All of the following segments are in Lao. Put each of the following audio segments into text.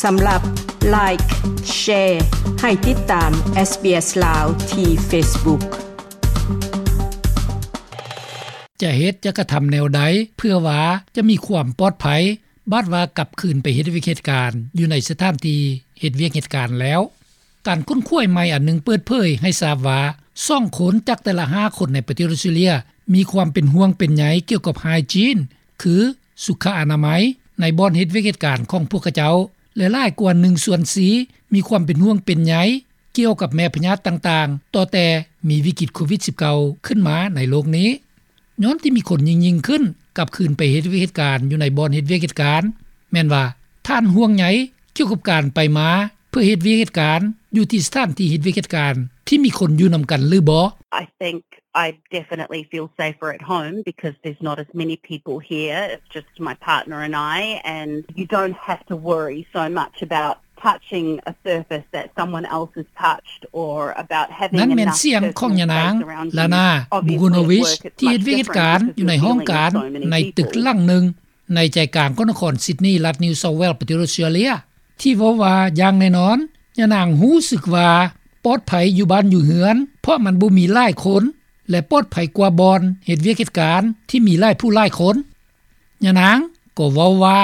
ສຳລັບ Like, Share ໃຫ້ຕິດຕາມ SBS ລາວ ທີ່ Facebook. ຈະເຮັດ ຈະກະທຳແນວໃດ ເພື່ອວ່າຈະມີຄວາມປອດໄພ ບາດວ່າກັບຄືນໄປເຮັດວຽກເຮັດການ ຢູ່ໃນສະຖານທີ່ເຮັດວຽກເຮັດການແລ້ວ? ການຄົ້ນຄວ້າໃໝ່ອັນໜຶ່ງເປີດເຜີຍໃຫ້ຊາບວ່າ ສອງຄົນຈາກແຕ່ລະຫ້າຄົນໃນປະເທດອອສເຕຣເລັຍ ມີຄວາມເປັນຫ່ວງເປັນໃຍກ່ຽວກັບໄຮຈີນ ຄື ສຸຂະອະນາໄມ ໃນບ່ອນເຮັດວຽກເຮັດການຂອງພວກເຂົາເຈົ້າ ແລະ ຫຼາຍກວ່າໜຶ່ງສ່ວນສີ່ ມີຄວາມເປັນຫ່ວງເປັນໃຍກ່ຽວກັບແມ່ພະຍາດຕ່າງໆ ຕໍ່ແຕ່ມີວິກິດໂຄວິດສິບເກົ້າ ຂຶ້ນມາໃນໂລກນີ້. ຍ້ອນທີ່ມີຄົນຍິ່ງໆຂຶ້ນກັບຄືນໄປເຮັດວຽກເຮັດການຢູ່ໃນບ່ອນເຮັດວຽກເຮັດການ ແມ່ນວ່າທ່ານຫ່ວງໃຍກ່ຽວກັບການໄປມາ ເພື່ອເຮັດວຽກເຮັດການ ຢູ່ທີ່ສະຖານທີ່ເຮັດວຽກເຮັດການ ທີ່ມີຄົນຢູ່ນຳກັນຫຼືບໍ່? I think I definitely feel safer at home because there's not as many people here. It's just my partner and I, and you don't have to worry so much about touching a surface that someone else has touched or about having ນັ້ນແມ່ນ enough ສຽງຂອງຍານາງ personal space around you. ລານາ ບູໂກໂນວິຊ ທີ່ເຮັດວຽກເຮັດການຢູ່ໃນຫ້ອງການໃນຕຶກຫຼັງໜຶ່ງ ໃນໃຈກາງຂອງນະຄອນຊິດນີ ລັດນິວເຊົາເວລສ໌ ປະເທດອອສເຕຣເລັຍ ທີ່ເວົ້າວ່າ ຢ່າງແນ່ນອນ ຍານາງຮູ້ສຶກວ່າປອດໄພຢູ່ບ້ານຢູ່ເຮືອນ ເພາະມັນບໍ່ມີຫຼາຍຄົນ ແລະ ປອດໄພກວ່າບ່ອນເຮັດວຽກເຮັດການທີ່ມີຫຼາຍຜູ້ຫຼາຍຄົນ. ຍານາງກໍເວົ້າວ່າ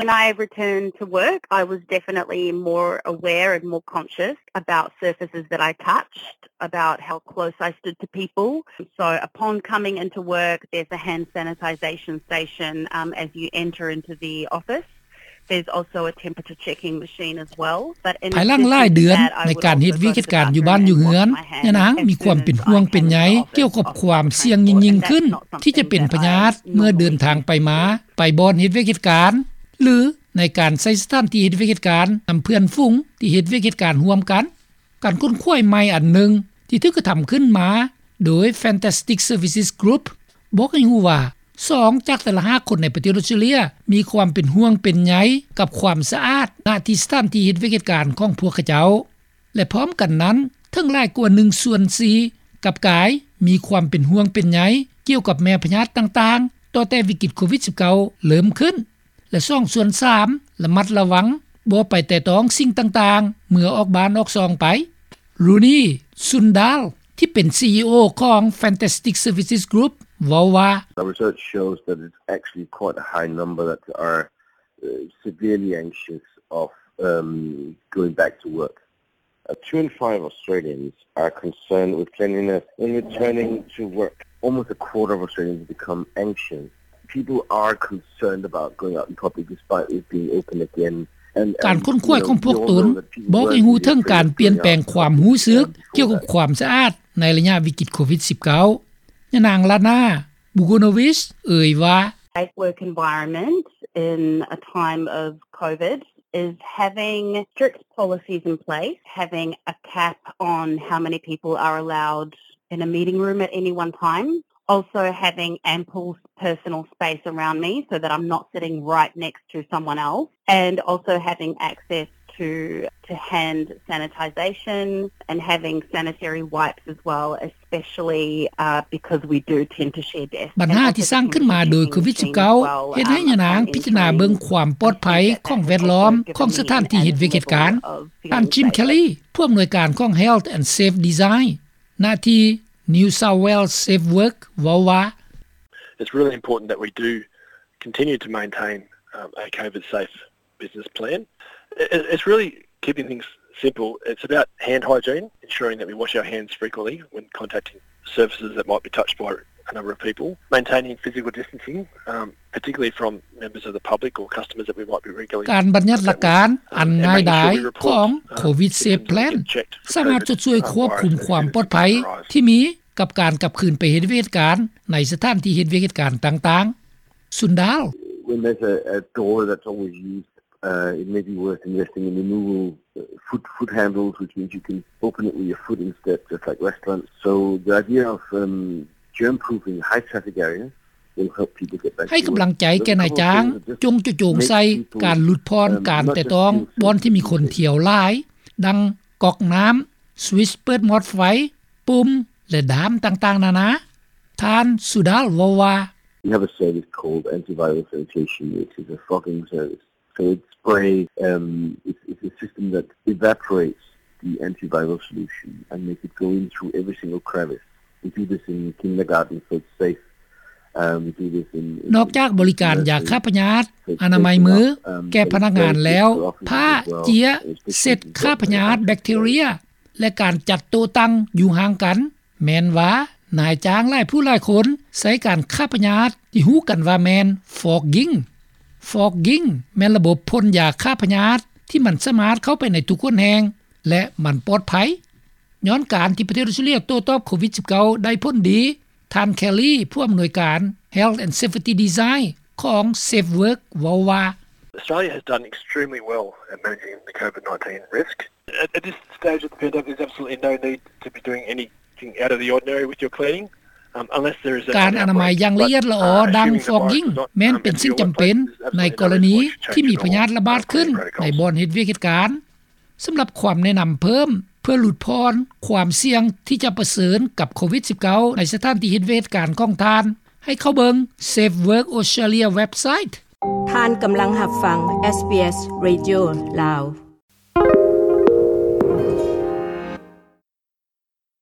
When I returned to work, I was definitely more aware and more conscious about surfaces that I touched, about how close I stood to people. So upon coming into work, there's a hand sanitization station, um, as you enter into the office. There's also a temperature checking machine as well. But in ພາຍຫຼັງຫຼາຍເດືອນໃນການເຮັດວຽກເຮັດການຢູ່ບ້ານຢູ່ເຮືອນ ຍານາງມີຄວາມເປັນຫ່ວງເປັນໃຍກ່ຽວກັບຄວາມສ່ຽງຍິ່ງໆຂຶ້ນ ທີ່ຈະເປັນພະຍາດເມື່ອເດີນທາງໄປມາ ໄປບ່ອນເຮັດວຽກເຮັດການ ຫຼື ໃນການໃຊ້ສະຖານທີ່ເຮັດວຽກເຮັດການນຳເພື່ອນຝູງທີ່ເຮັດວຽກເຮັດການຮ່ວມກັນ. ການຄົ້ນຄວ້າໃໝ່ອັນໜຶ່ງທີ່ຖືກກະທຳຂຶ້ນມາໂດຍ Fantastic Services Group ບອກໃຫ້ຮູ້ວ່າ ສອງຈາກແຕ່ລະຫ້າຄົນໃນປະເທດອອສເຕຣເລັຍ ມີຄວາມເປັນຫ່ວງເປັນໃຍກັບຄວາມສະອາດ ນະທີ່ສະຖານທີ່ເຮັດວຽກເຮັດການຂອງພວກເຂົາເຈົ້າ ແລະ ພ້ອມກັນນັ້ນ ເຖິງຫຼາຍກວ່າໜຶ່ງສ່ວນສີ່ ກັບກາຍມີຄວາມເປັນຫ່ວງເປັນໃຍກ່ຽວກັບແມ່ພະຍາດຕ່າງໆ ຕໍ່ແຕ່ວິກິດໂຄວິດສິບເກົ້າເລີ່ມຂຶ້ນ ແລະ ສອງສ່ວນສາມ ລະມັດລະວັງບໍ່ໄປແຕະຕ້ອງສິ່ງຕ່າງໆ ເມື່ອອອກບ້ານອອກຊ່ອງໄປ. ຣູນີ ຊຸນດາລ ທີ່ເປັນ ຊີອີໂອ ຂອງ Fantastic Services Group ເວົ້າວ່າ Our research shows that it's actually quite a high number that are, uh, severely anxious of, um, going back to work. Uh, two in five Australians are concerned with cleanliness in returning to work. Almost a quarter of Australians become anxious. People are concerned about going out in public despite it being open again. And, ການຄົ້ນຄວ້າຂອງພວກຕົນບອກໃຫ້ຮູ້ເຖິງການປ່ຽນແປງຄວາມຮູ້ສຶກກ່ຽວກັບຄວາມສະອາດໃນໄລຍະວິກິດໂຄວິດສິບເກົ້າ. ຍານາງ ລານາ ບູໂກໂນວິຊ ເອີ່ຍວ່າ Safe work environment in a time of COVID is having strict policies in place, having a cap on how many people are allowed in a meeting room at any one time, also having ample personal space around me so that I'm not sitting right next to someone else, and also having access to, to hand sanitization and having sanitary wipes as well, especially, uh, because we do tend to share desks. ບັນຫາທີ່ສ້າງຂຶ້ນມາໂດຍໂຄວິດສິບເກົ້າ ເຮັດໃຫ້ຍານາງພິຈາລະນາເບິ່ງຄວາມປອດໄພຂອງແວດລ້ອມຂອງສະຖານທີ່ເຮັດວຽກເຮັດການ. ທ່ານ ຈິມ ແຄລີ ຜູ້ອຳນວຍການຂອງ Health and Safe Design ນະທີ່ New South Wales Safe Work ເວົ້າວ່າ It's really important that we do continue to maintain, um, a COVID safe business plan. It, it's really keeping things simple. It's about hand hygiene, ensuring that we wash our hands frequently when contacting surfaces that might be touched by a number of people, maintaining physical distancing, um, particularly from members of the public or customers that we might be regularly ການບັນຍັດຫຼັກການອັນງ່າຍດາຍຂອງ COVID Safe Plan ສາມາດຊ່ວຍຄວບຄຸມຄວາມປອດໄພທີ່ມີ ກັບການກັບຄືນໄປເຮັດວຽກເຮັດການໃນສະຖານທີ່ເຮັດວຽກເຮັດການຕ່າງໆ. ຊຸນດາລ When there's a, a door that's always used, uh, it may be worth investing in removable, uh, foot, foot handles, which means you can open it with your foot instead, just like restaurants. So the idea of, um, germ-proofing high traffic areas will help people get back to work. ໃຫ້ກຳລັງໃຈແກ່ນາຍຈ້າງ ຈົ່ງຈະໂຈງໃສ່ການຫຼຸດຜ່ອນການແຕະຕ້ອງບ່ອນທີ່ມີຄົນທ່ຽວຫຼາຍ ດັ່ງກອກນ້ຳ, switch ເປີດມອດໄຟ, ປຸ່ມ ແລະ ດ້າມຕ່າງໆນານາ. ທ່ານ ຊູດາລ ເວົ້າວ່າ We have a service called antiviral sanitation, which is a fogging service. So it sprays, um, it's, it's a system that evaporates the antiviral solution and makes it go in through every single crevice. We do this in kindergarten, so it's safe. Um, we do this in, in ນອກຈາກບໍລິການຢາຂ້າພະຍາດ, ອະນາໄມມືແກ່ພະນັກງານແລ້ວ, ຜ້າເຈ້ຍເຊັດຂ້າພະຍາດແບັກທີເຣຍ ແລະ ການຈັດໂຕະຕັ່ງຢູ່ຫ່າງກັນ. ແມ່ນວ່ານາຍຈ້າງຫຼາຍຜູ້ຫຼາຍຄົນໃຊ້ການຂ້າພະຍາດທີ່ຮູ້ກັນວ່າແມ່ນ fogging. Fogging ແມ່ນລະບົບພົ່ນຢາຂ້າພະຍາດທີ່ມັນສາມາດເຂົ້າໄປໃນທຸກຫົນແຫ່ງ ແລະ ມັນປອດໄພ. ຍ້ອນການທີ່ປະເທດອອສເຕຣເລັຽໂຕ້ຕອບໂຄວິດສິບເກົ້າ ໄດ້ຜົນດີ, ທ່ານ Kelly ຜູ້ອຳນວຍການ Health and Safety Design ຂອງ SafeWork ເວົ້າວ່າ Australia has done extremely well at managing the COVID nineteen risk. At, at this stage of the pandemic, there's absolutely no need to be doing anything out of the ordinary with your cleaning, um, unless there is a, ການອະນາໄມຢ່າງລະອຽດລະອໍ ດັ່ງ fogging ແມ່ນເປັນສິ່ງຈຳເປັນໃນກໍລະນີທີ່ມີພະຍາດລະບາດຂຶ້ນໃນບ່ອນເຮັດວຽກເຮັດການ. ສຳລັບຄວາມແນະນຳເພີ່ມເພື່ອຫຼຸດຜ່ອນຄວາມສ່ຽງທີ່ຈະປະເຊີນກັບໂຄວິດສິບເກົ້າ ໃນສະຖານທີ່ເຮັດວຽກເຮັດການຂອງທ່ານ, ໃຫ້ເຂົ້າເບິ່ງ SafeWork Australia website. ທ່ານກຳລັງຮັບຟັງ SBS Radio ລາວ.